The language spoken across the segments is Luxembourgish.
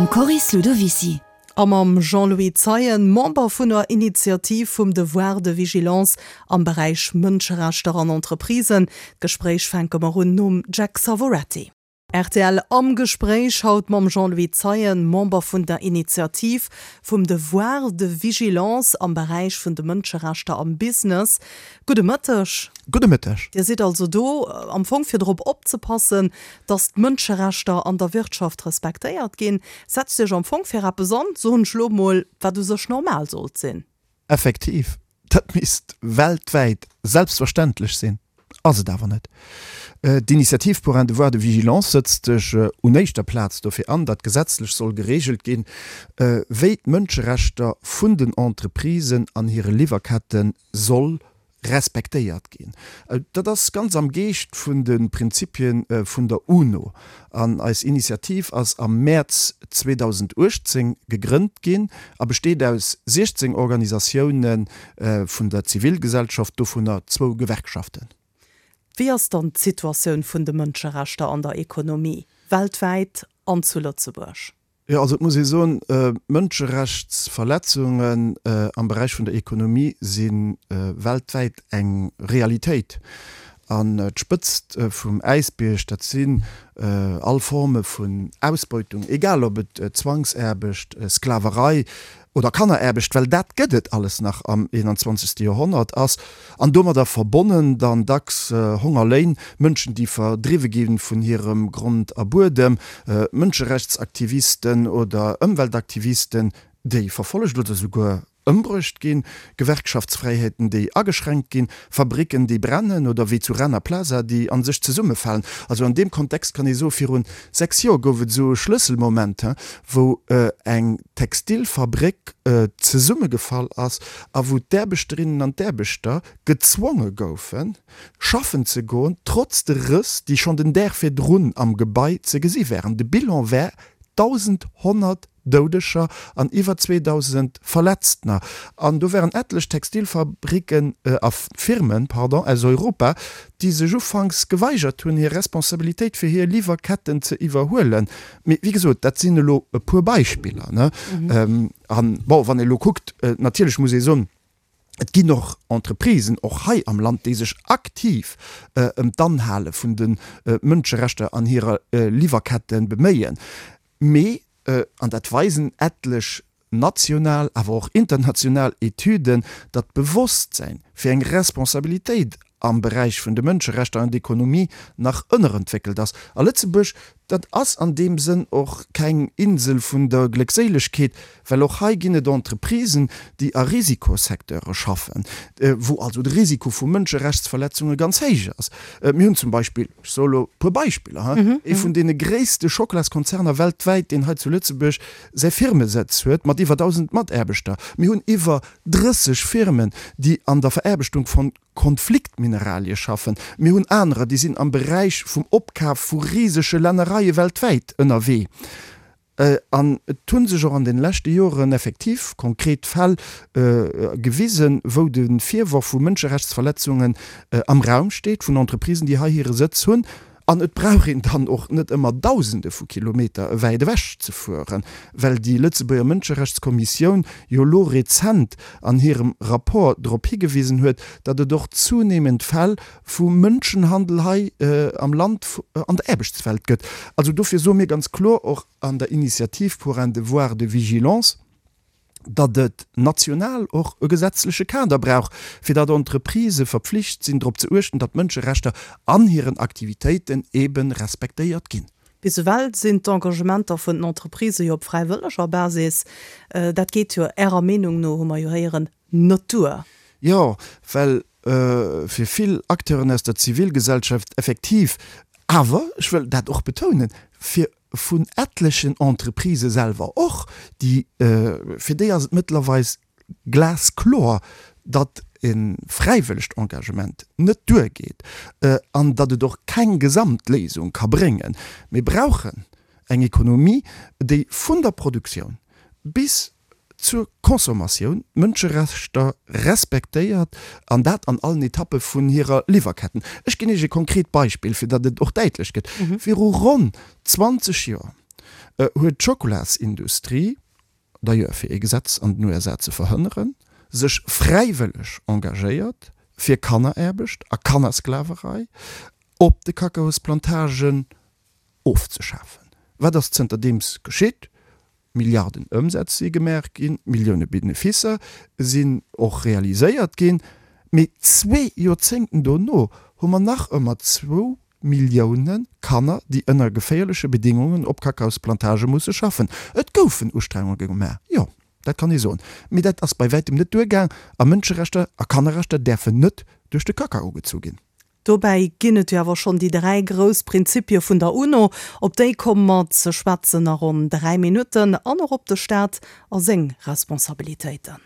Mam Coris Ludovicy. A mam Jean-Louis Zeien, Member vun der Initiativ vum Devoir de vigilance am Beräich Mënscherechter an Entreprisen. D'Gespréich fänke mer un nom Jack Savoretti. Rtl am Gespréich, haut mam Jean-Louis Zeien, Member vun der Initiativ vum Devoir de vigilance am Beräich vun de Mënscherechter am Business. Gudde Mëtteg. Gudde Mëtteg. Dir sidd also do am Fong fir drop opzepassen, datt d'Mënscherechter an der Wirtschaft respektéiert ginn. Setzt Iech am Fong fir eppes an, soen ech elo mol, wat u sech normal sollt sinn. Effektiv, dat misst weltwäit selbstverständlech sinn, ass et awer net. D'Initiative pour un devoir de vigilance sëtzt sech un éischter Plaz dofir an, datt gesetzlech soll gereegelt ginn, wéi d'Mënscherechter vun den Entreprisen an hire Liwwerkette soll respektéiert ginn. Dat ass ganz am Geescht vun de Prinzipie vun der UNO. An eis Initiativ ass am Mäerz 2018 gegrënnt ginn a besteet aus 16 Organisatioune vun der Zivilgesellschaft, dovunner zwou Gewerkschaften. Wéi ass dann d'Situatioun vun de Mënscherechter an der Ekonomie, weltwäit an zu Lëtzebuerg? Jo, also et muss ee soen, Mënscherechtsverletzungen am Beräich vun der Ekonomie si weltwäit eng Realitéit. An d'Spëtzt vum Äisbierg, dat sinn all Forme vun Ausbeutung, egal ob et Zwangsaarbecht, Sklaverei oder Kanneraarbecht, well dat gëtt et alles nach am 21. Joerhonnert, ass, an domadder verbonnen dann dacks Hongerléin, Mënschen, déi verdriwwe gi vun hirem Grond a Buedem, Mënscherechtsaktivisten oder Ëmweltaktivisten, déi verfollegt oder souguer ëmbruecht ginn, Gewerkschaftsfräiheeten, déi ageschränkt ginn, Fabricken, déi brennen oder wéi zu Rana Plaza, déi an sech zesummefalen. Also an deem Kontext kann ee soen, virun 6 Joer gouf et esou e Schlësselmoment, wou eng Textilfabréck zesummegefall ass a wou d'Aarbechterinnen an d'Aarbechter gezwonge goufen, schaffen ze goen, trotz de Rëss, déi schonn den Dag virdrun am Gebai ze gesi waren. De Bilan war 1.100 Doudeger an iwwer 2.000 Verletztener. An do waren etlech Textilfabricken a Firmen, pardon, aus Europa, déi sech ufanks geweigert hunn, hir Responsabilitéit fir hir Liwwerketten ze iwwerhuelen. Mee wéi gesot, dat sinn elo e puer Beispiller, ne? An bon, wann ee elo kuckt, natierlech muss ee soen, et ginn och Entreprisen, och hei am Land, déi sech aktiv ëm d'Anhale vun de Mënscherechter an hirer Liwwerkette beméien. Mee, an dat weisen etlech national, awer och international Etüden, datt d'Bewosstsäin fir eng Responsabilitéit am Beräich vun de Mënscherechter an d'Ekonomie nach ënnerentwéckelt ass. A Lëtzebuerg, dat ass an deem Sënn och keng Insel vun der Gléckséilegkeet, well och hei ginn et Entreprisen, déi a Risikosecteure schaffen, wou also de Risiko vu Mënscherechtsverletzunge ganz héich ass. Mir hunn zum Beispill, ech soe elo e puer Beispiller, ee vun deene gréisste Schocklaskonzerner weltwäit, deen hei zu Lëtzebuerg säi Firmesëtz huet mat iwwer 1.000 Mataarbechter. Mir hunn iwwer 30 Firmen, déi an der Veraarbechtung von Konfliktmineralie schaffen. Mir hunn anerer, déi sinn am Beräich vum Opkaf vu risege Lännereie weltwäit ënnerwee. An et hu sech och an de leschte Joren effektiv konkret Fäll gewisen, wou de Virworf vu Mënscherechtsverletzungen am Raum steet vun Entreprisen, déi hei hire Sëtz hunn. An et brauch een dann och net ëmmer Dausende vu Kilometer wäit ewech ze fueren, well déi Lëtzebuerger Mënscherechtskommissioun jo elo rezent an hirem Rapport drop higewisen huet, datt et och zunehmend Fäll vu Mënschenhandel hei am Land an der Aarbechtswelt gëtt. Also dofir soe mir ganz kloer och an der Initiative pour un devoir de vigilance, datt et national och e gesetzleche Kader brauch, fir datt Entreprisë verpflicht sinn, drop ze uechten, datt d'Mënscherechter an hiren Aktivitéiten eebe respektéiert ginn. Bis ewell sinn d'Engagementer vun den Entreprisë jo op fräiwëlleger Basis. Dat geet jo Ärer Meenung no, hu mer jo héieren, net duer. Jo, well fir vill Acteuren aus der Zivilgesellschaft effektiv, awer ech wëll dat och betounen, fir vun etlechen Entreprisë selwer och, déi, fir déi ass et mëttlerweis glaskloer, datt e fräiwëllegt Engagement net duergeet an datt et och keng Gesamtléisung ka bréngen. Mir brauchen eng Ekonomie, déi vun der Produktioun bis zur Consommatioun d'Mënscherechter respektéiert, an dat an allen Etappe vun hirer Liwwerketten. Ech ginn Iech e konkret Beispill, fir datt et och däitlech gëtt. Viru ronn 20 Joer. huet d'Schokolasindustrie, d'ailleurs fir ee Gesetz an den USA ze verhënneren, sech fräiwëlleg engagéiert, fir Kanneraarbecht a Kannersklaverei op de Kakaosplantagen ofzeschafen. Wat ass zënterdeems geschitt? Milliarden Ëmsätz si gemaach ginn, Millioune Beneficer sinn och realiséiert ginn, mee zwee Joerzéngten dono hu mer nach ëmmer zwou Millioune Kanner, déi ënner geféierleche Bedingungen op Kakaosplantagë musse schaffen. Et goufen Ustrengunge gemaach, jo, dat kann ee soen, mee dat ass bei wäitem net duergaang a Mënscherechter a Kannerrechter däerfen net duerch de Kakao gezu ginn. Dobäi ginn et jo awer schonn déi 3 grouss Prinzipie vun der UNO. Op déi komme mer ze schwätzen a ronn 3 Minutten an och op de Staat a seng Responsabilitéiten.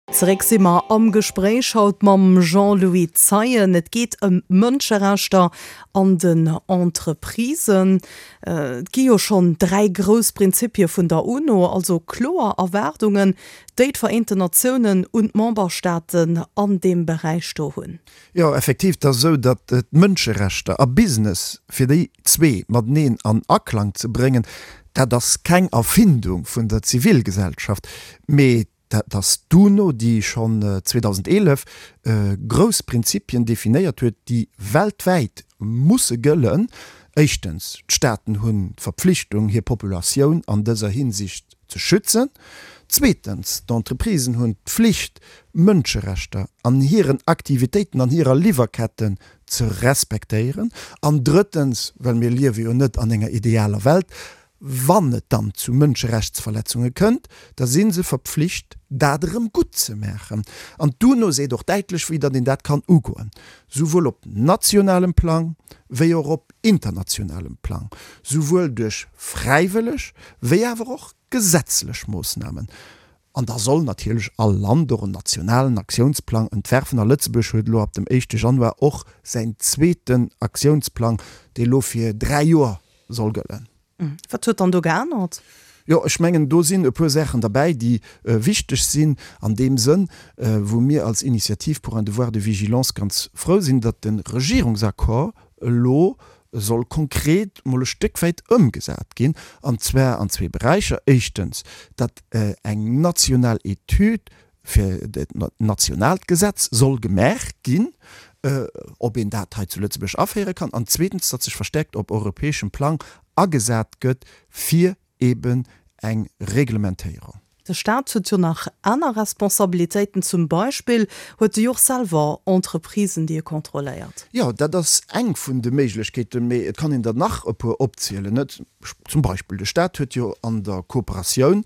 Zeréck si mer am Gespréich haut mam Jean-Louis Zeien. Et geet ëm d'Mënscherechter an den Entreprisen. Et gi jo schonn 3 grouss Prinzipie vun der UNO, also kloer Erwaardungen, déi d'Vereenten Natiounen un d'Memberstaaten an deem Beräich do hunn. Jo, effektiv, et ass esou, datt d'Mënscherechter a Business, fir déi zwee mateneen an Aklang ze bréngen, dat ass keng Erfindung vun der Zivilgesellschaft, mee dat ass d'UNO, déi schonn 2011 grouss Prinzipien definéiert huet, déi weltwäit musse gëllen. Éischtens, d'Staaten hunn d'Verpflichtung, hir Populatioun an dëser Hinsicht ze schützen. Zweetens, d'Entreprisen hunn d'Flicht, Mënscherechter an hiren Aktivitéiten, an hirer Liwwerketten ze respektéieren. An drëttens, well mir liewe jo net an enger idealer Welt, wann et dann zu Mënscherechtsverletzunge kënnt, da si se verpflicht, dat erëm gutt ze maachen. An d'UNO seet och däitlech, wéi datt een dat kann ugoen, souwuel op nationalem Plang wéi och op internationalem Plang, souwuel duerch fräiwëlleg wéi awer och gesetzlech Moossnamen. An da soll natierlech all Land och en nationalen Aktiounsplang entwerfen. A Lëtzebuerg huet elo ab dem éischte Januar och säin zweeten Aktiounsplang, dee elo fir 3 Joer soll gëllen. Wat huet dann do geännert? Jo, ech mengen, do sinn e puer Saachen derbäi, déi wichteg sinn an deem Sënn, wou mir als Initiative pour un devoir de vigilance ganz frou sinn, datt de Regierungsaccord elo soll konkret mol e Stéck wäit ëmgesat ginn, an zwar an zwee Beräicher. Éischtens, datt eng national Etüd fir dat nationaalt Gesetz soll gemaach ginn, ob een dat hei zu Lëtzebuerg aféiere kann, an zweetens, datt sech verstärkt op europäeschem Plang agesat gëtt fir eben eng Reglementéierung. De Staat huet jo nach aner Responsabilitéiten, zum Beispill huet e jo och selwer Entreprisen, déi e kontrolléiert. Jo, dat ass eng vun de Méiglechkeeten, mee et kann een der nach e puer opzielen, net? Zum Beispill de Staat huet jo an der Kooperatioun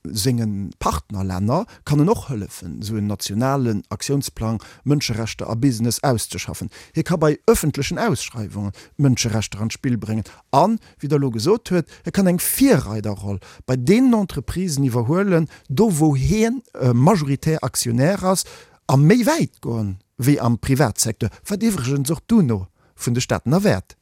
Senge Partnerlänner kann en och hëllefen, esou en nationalen Aktiounsplang Mënscherechter a Business auszeschaffen. Hie ka bei ëffentlechen Ausschreiwungen d'Mënscherechter an d'Spill bréngen an, wéi Der elo gesot huet, e kann eng Virreiderroll bei deenen Entreprisen iwwerhuelen, do wou hien majoritär Aktionär ass, a méi wäit goen wéi am Privatsecteur, wat iwwregens och d'UNO vun de Staaten erwäert.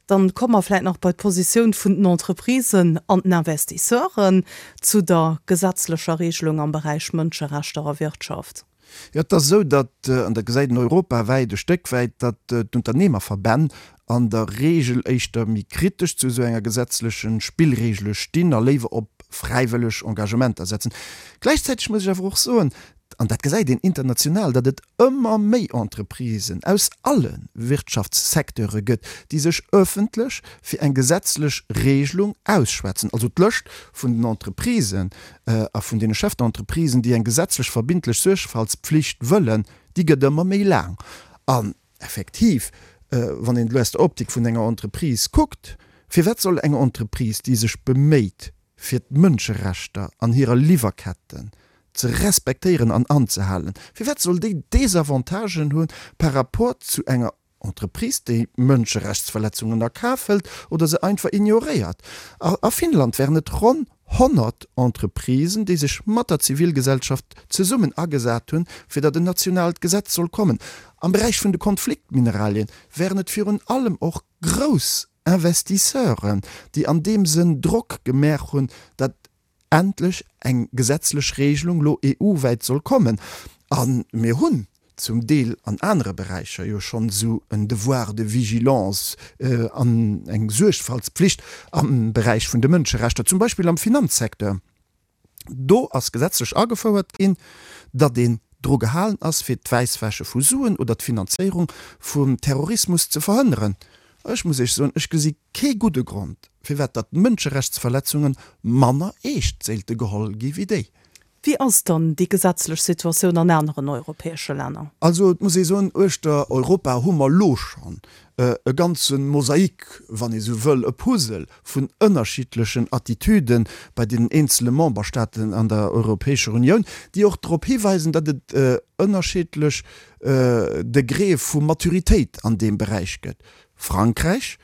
Dann komme mer vläit nach bei d'Positioun vun den Entreprisen an den Investisseuren zu der gesetzlecher Regelung am Beräich Mënscherechter a Wirtschaft. Jo, et ass esou, datt, an dat gesäit een europawäit e Stéck wäit, datt d'Unternehmerverbänn an der Regel éischter méi kritesch zu esou enger gesetzleche Spillregele stinn a léiwer op fräiwëlleg Engagementer setzen. Gläichzäiteg muss ech awer och soen, an dat gesäit een international, datt et ëmmer méi Entreprisen aus alle Wirtschaftssecteure gëtt, déi sech öffentlech fir eng gesetzlech Regelung ausschwätzen. Also d'Lëscht vun den Entreprisen a vun deene Chef-d'entreprisen, déi eng gesetzlech verbindlech Suergfaltspflicht wëllen, déi gëtt ëmmer méi laang. An effektiv, wann een elo aus der Optik vun enger Entreprise kuckt, firwat soll eng Entreprise, déi sech beméit, fir d'Mënscherechter an hirer Liwwerketten ze respektéieren an anzehalen, firwat soll déi Desavantagen hu par rapport zu enger Entreprise, déi Mënscherechtsverletzungen a Kaf hëlt oder se einfach ignoréiert? A Finnland wären et ronn 100 Entreprisen, déi sech mat der Zivilgesellschaft zesummen agesat hunn, fir datt en nationaalt Gesetz soll kommen. Am Beräich vun de Konfliktmineralien wären et virun allem och grouss Investisseuren, déi an deem Sënn Drock gemaach hunn, datt endlech eng gesetzlech Regelung lo EU-wäit soll kommen. A mir hunn. zum Deel an anere Beräicher jo schonn esou en Devoir de vigilance an eng Suergfaltspflicht am Beräich vun de Mënscherechter, zum Beispill am Finanzsecteur. Do ass gesetzlech agefouert ginn, datt een dru gehalen ass, fir d'Wäisswäsche vu Suen oder d'Finanzéierung vum Terrorismus ze verhënneren. Ech muss Iech soen, ech gesi kee gudde Grond, firwat datt Mënscherechtsverletzunge manner eescht séilte geholl gi wéi déi. Wéi ass dann déi gesetzlech Situatioun an aneren europäesche Länner? Also et muss ee soen, uechter Europa hu mer elo schonn e ganze Mosaik, wann ee sou wëll, e Puzzle vun ënnerschiddlechen Attitüde bei deenen eenzele Memberstaaten an der Europäescher Unioun, déi och drop hiweisen, datt et ënnerschiddlech Degréë vu Maturitéit an deem Beräich gëtt. Frankräich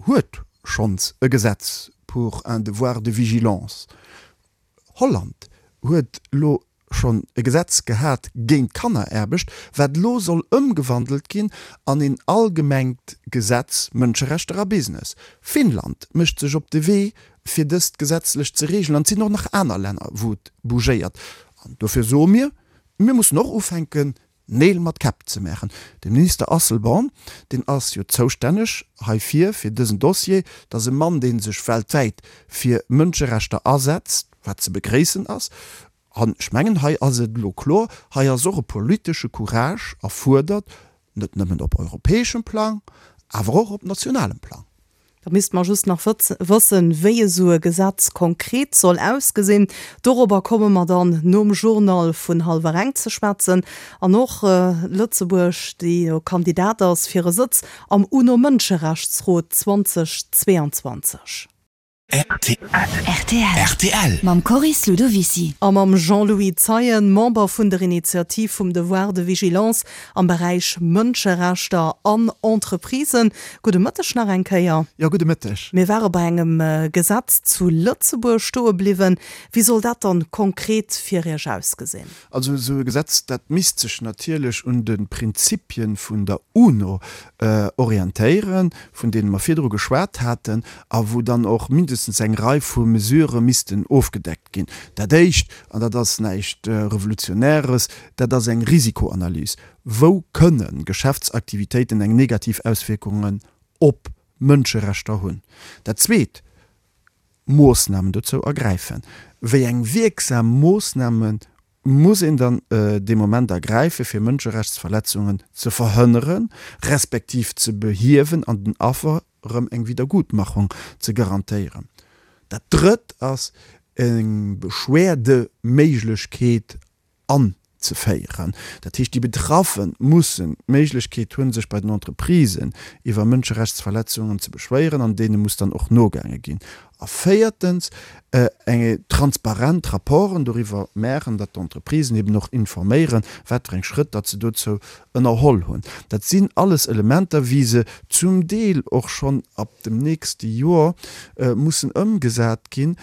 huet schonns e Gesetz pour un devoir de vigilance. Holland huet elo schonn e Gesetz gehat géint Kanneraarbecht, wat elo soll ëmgewandelt ginn an een allgemengt Gesetz Mënscherechter a Business. Finnland mécht sech op de Wee, fir dëst gesetzlech ze reegelen an et sinn och nach aner Länner, wou et bougéiert. An dofir soe mir, mir mussen och ufänken, Neel mat Käpp ze maachen. De Minister Asselborn, deen ass jo zoustänneg heifir, fir dësen Dossier, dat ass e Mann, dee sech weltwäit fir Mënscherechter asetzt, wat ze begréissen ass. An ech mengen, hei ass et elo kloer, hei ass och e politesche Courage erfuerdert, net nëmmen op europäeschem Plang, awer och op nationalem Plang. Da misste mer just nach wëssen, wéi esou e Gesetz konkret soll ausgesinn. Dorobber komme mer dann nom Journal vun hallwer eng ze schwätzen. An och Lëtzebuerg, déi jo Kandidat ass fir e Sëtz am UNO-Mënscherechtsrot 2022. Rtl. Mam Coris Ludovicy. A mam Jean-Louis Zeien, Member vun der Initiativ vum Devoir de vigilance am Beräich Mënscherechter an Entreprisen. Gudde Mëtteg nach eng Kéier. Jo, gudde Mëtteg. Mir ware bei engem Gesetz zu Lëtzebuerg stoe bliwwen. Wéi soll dat dann konkret fir Iech ausgesinn? Also esou e Gesetz, dat misst sech natierlech un de Prinzipien vun der UNO orientéieren, vun deene mer virdru geschwat haten, a wou dann och mindestens eng Rei vu Mesurë missten ofgedeckt ginn. Dat Éischt, an dat ass näischt Revolutionäres, dat ass eng Risikoanalys. Wou kënne Geschäftsaktivitéiten eng negativ Auswierkungen op Mënscherechter hunn? Dat Zweet, Moossnamen dozou ergräifen. Wéi eng wierksam Moossname muss een dann dee Moment ergräifen, fir Mënscherechtsverletzungen ze verhënneren, respektiv ze behiewen an den Affer erëm eng Wiedergutmachung ze garantéieren? Dat Drëtt ass eng Beschwerdeméiglechkeet anzeféieren. Dat heescht, déi Betraffe mussen d'Méiglechkeet hunn, sech bei den Entreprisen iwwer Mënscherechtsverletzungen ze beschwéieren, an deene muss dann och nogaange ginn. A véiertens, eng transparent Rapporten doriwwer maachen, datt d'Entreprisen eben och informéieren, wat fir eng Schrëtt datt se dozou ënnerholl hunn. Dat sinn alles Elementer, wéi se zum Deel och schonn ab dem nächste Joer mussen ëmgesat ginn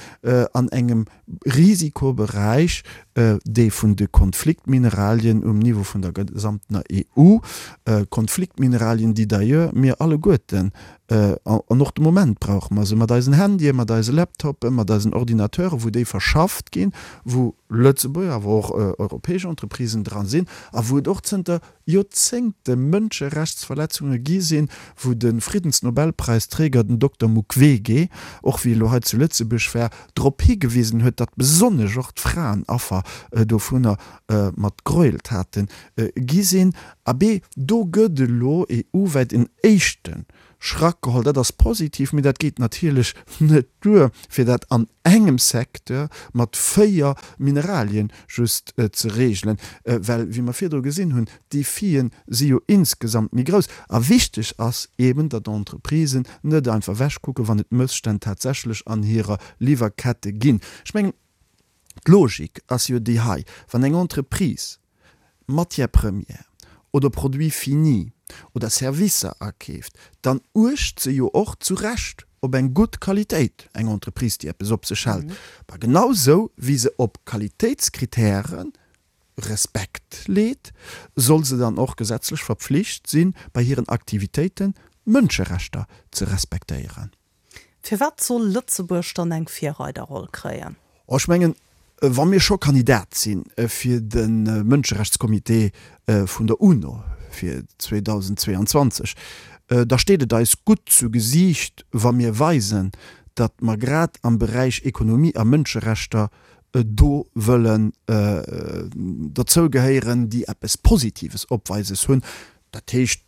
an engem Risikoberäich, dee vun de Konfliktmineralien um Niveau vun der gesamtener EU, Konfliktmineralien, déi d'ailleurs mir alleguerten an och de Moment brauche mer se mat eisen Handyen, mat eise Laptopen, mat eisen Ordinateuren, wou déi verschafft ginn, wou Lëtzebuerger, awer och europäesch Entreprisen dra sinn a wou et och zënter Joerzéngte Mënscherechtsverletzunge gi sinn, wou de Friddensnobelpräisträger, den Dokter Mukwege, och wéi e lo hei zu Lëtzebuerg war, drop higewisen huet, datt besonnesch och d'Fraen Affer dovunner mat Gräueltate gi sinn. Abee, do gëtt elo EU-wäit en éischte Schrack geholl. Dat ass positiv, mee dat geet natierlech net duer, fir dat an engem Secteur mat 4 Mineralien just ze regelen, well, wéi mer virdru gesinn hunn, d'Defien si jo insgesamt méi grouss. A wichteg ass eeben, datt d'Entreprisen net einfach ewechkucken, wann et Mësstänn tatsächlech an hirer Liwwerkette ginn. Ech mengen, d'Logik ass jo déi hei, Wann eng Entreprise Matière première oder Produits finis oder Servicer akeeft, dann uecht se jo och zu Recht op eng gutt Qualitéit, eng Entreprise, déi eppes op sech hält. Ma genau sou wéi se op Qualitéitskritäre Respekt leet, soll se dann och gesetzlech verpflicht sinn, bei hiren Aktivitéiten d'Mënscherechter ze respektéieren. Firwat soll Lëtzebuerg dann eng Virreiderroll kréien? Oh, ech mengen, Wa mir scho Kandidat si fir de Mënscherechtscomité vun der UNO fir 2022, da steet et eis gutt zu Gesiicht, wa mir weisen, datt mer grad am Beräich Ekonomie a Mënscherechter do wëllen derzou gehéieren, déi eppes Positives opweises hunn. Dat heescht,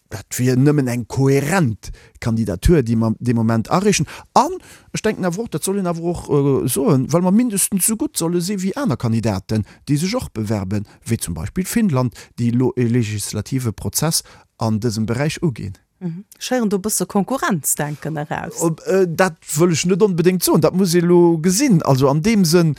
dat wier nëmmen eng kohärent Kandidatur, déi mer dee Moment areechen. An ech denken awer och, dat soll een awer och soen, well mer mindestens esou gutt solle si wéi aner Kandidaten, déi sech och bewerben, wéi zum Beispill Finnland, déi elo e legislative Prozess an dësem Beräich uginn. Ech héieren do e bësse Konkurrenzdenken eraus. Dat wëll ech net onbedéngt soen. Dat muss ee elo gesinn. Also an deem Sënn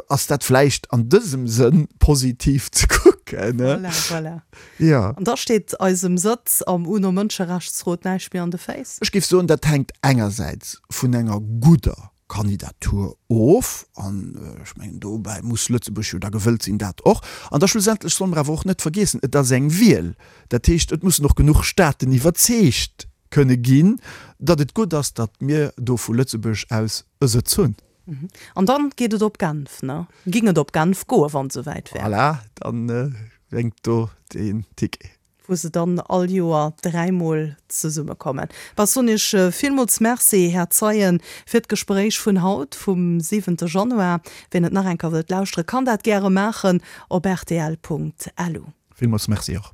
ass dat vläicht an dësem Sënn positiv ze kucken. Voilà, voilà. Jo. An da steet eisem Sëtz am UNO-Mënscherechtsrot näischt méi an de Féiss? Ech géif soen, dat hänkt engersäits vun enger gudder Kandidatur of, an ech mengen dobäi muss Lëtzebuerg jo da gewëllt sinn, dat och, an da schlussendlech solle mer awer och net vergiessen, et ass eng Wiel, dat heescht et mussen och genuch Staaten iwwerzeegt kënne ginn, datt et gutt ass, datt mir do vu Lëtzebuerg aus e Sëtz hunn. An dann geet et op Genf, ne? Ging et op Genf goen, wann et esouwäit wär? Voilà, dann blénkt do den Ticket. wou se dann all Joer dräimol zesummekommen. Bah, soen Iech villmools Merci, Här Zeien, fir d'Gespréich vun haut, vum siwente Januar. Wien et nach eng Kéier wëllt lauschteren, kann dat gäre maachen op rtl.lu. Villmools Merci och.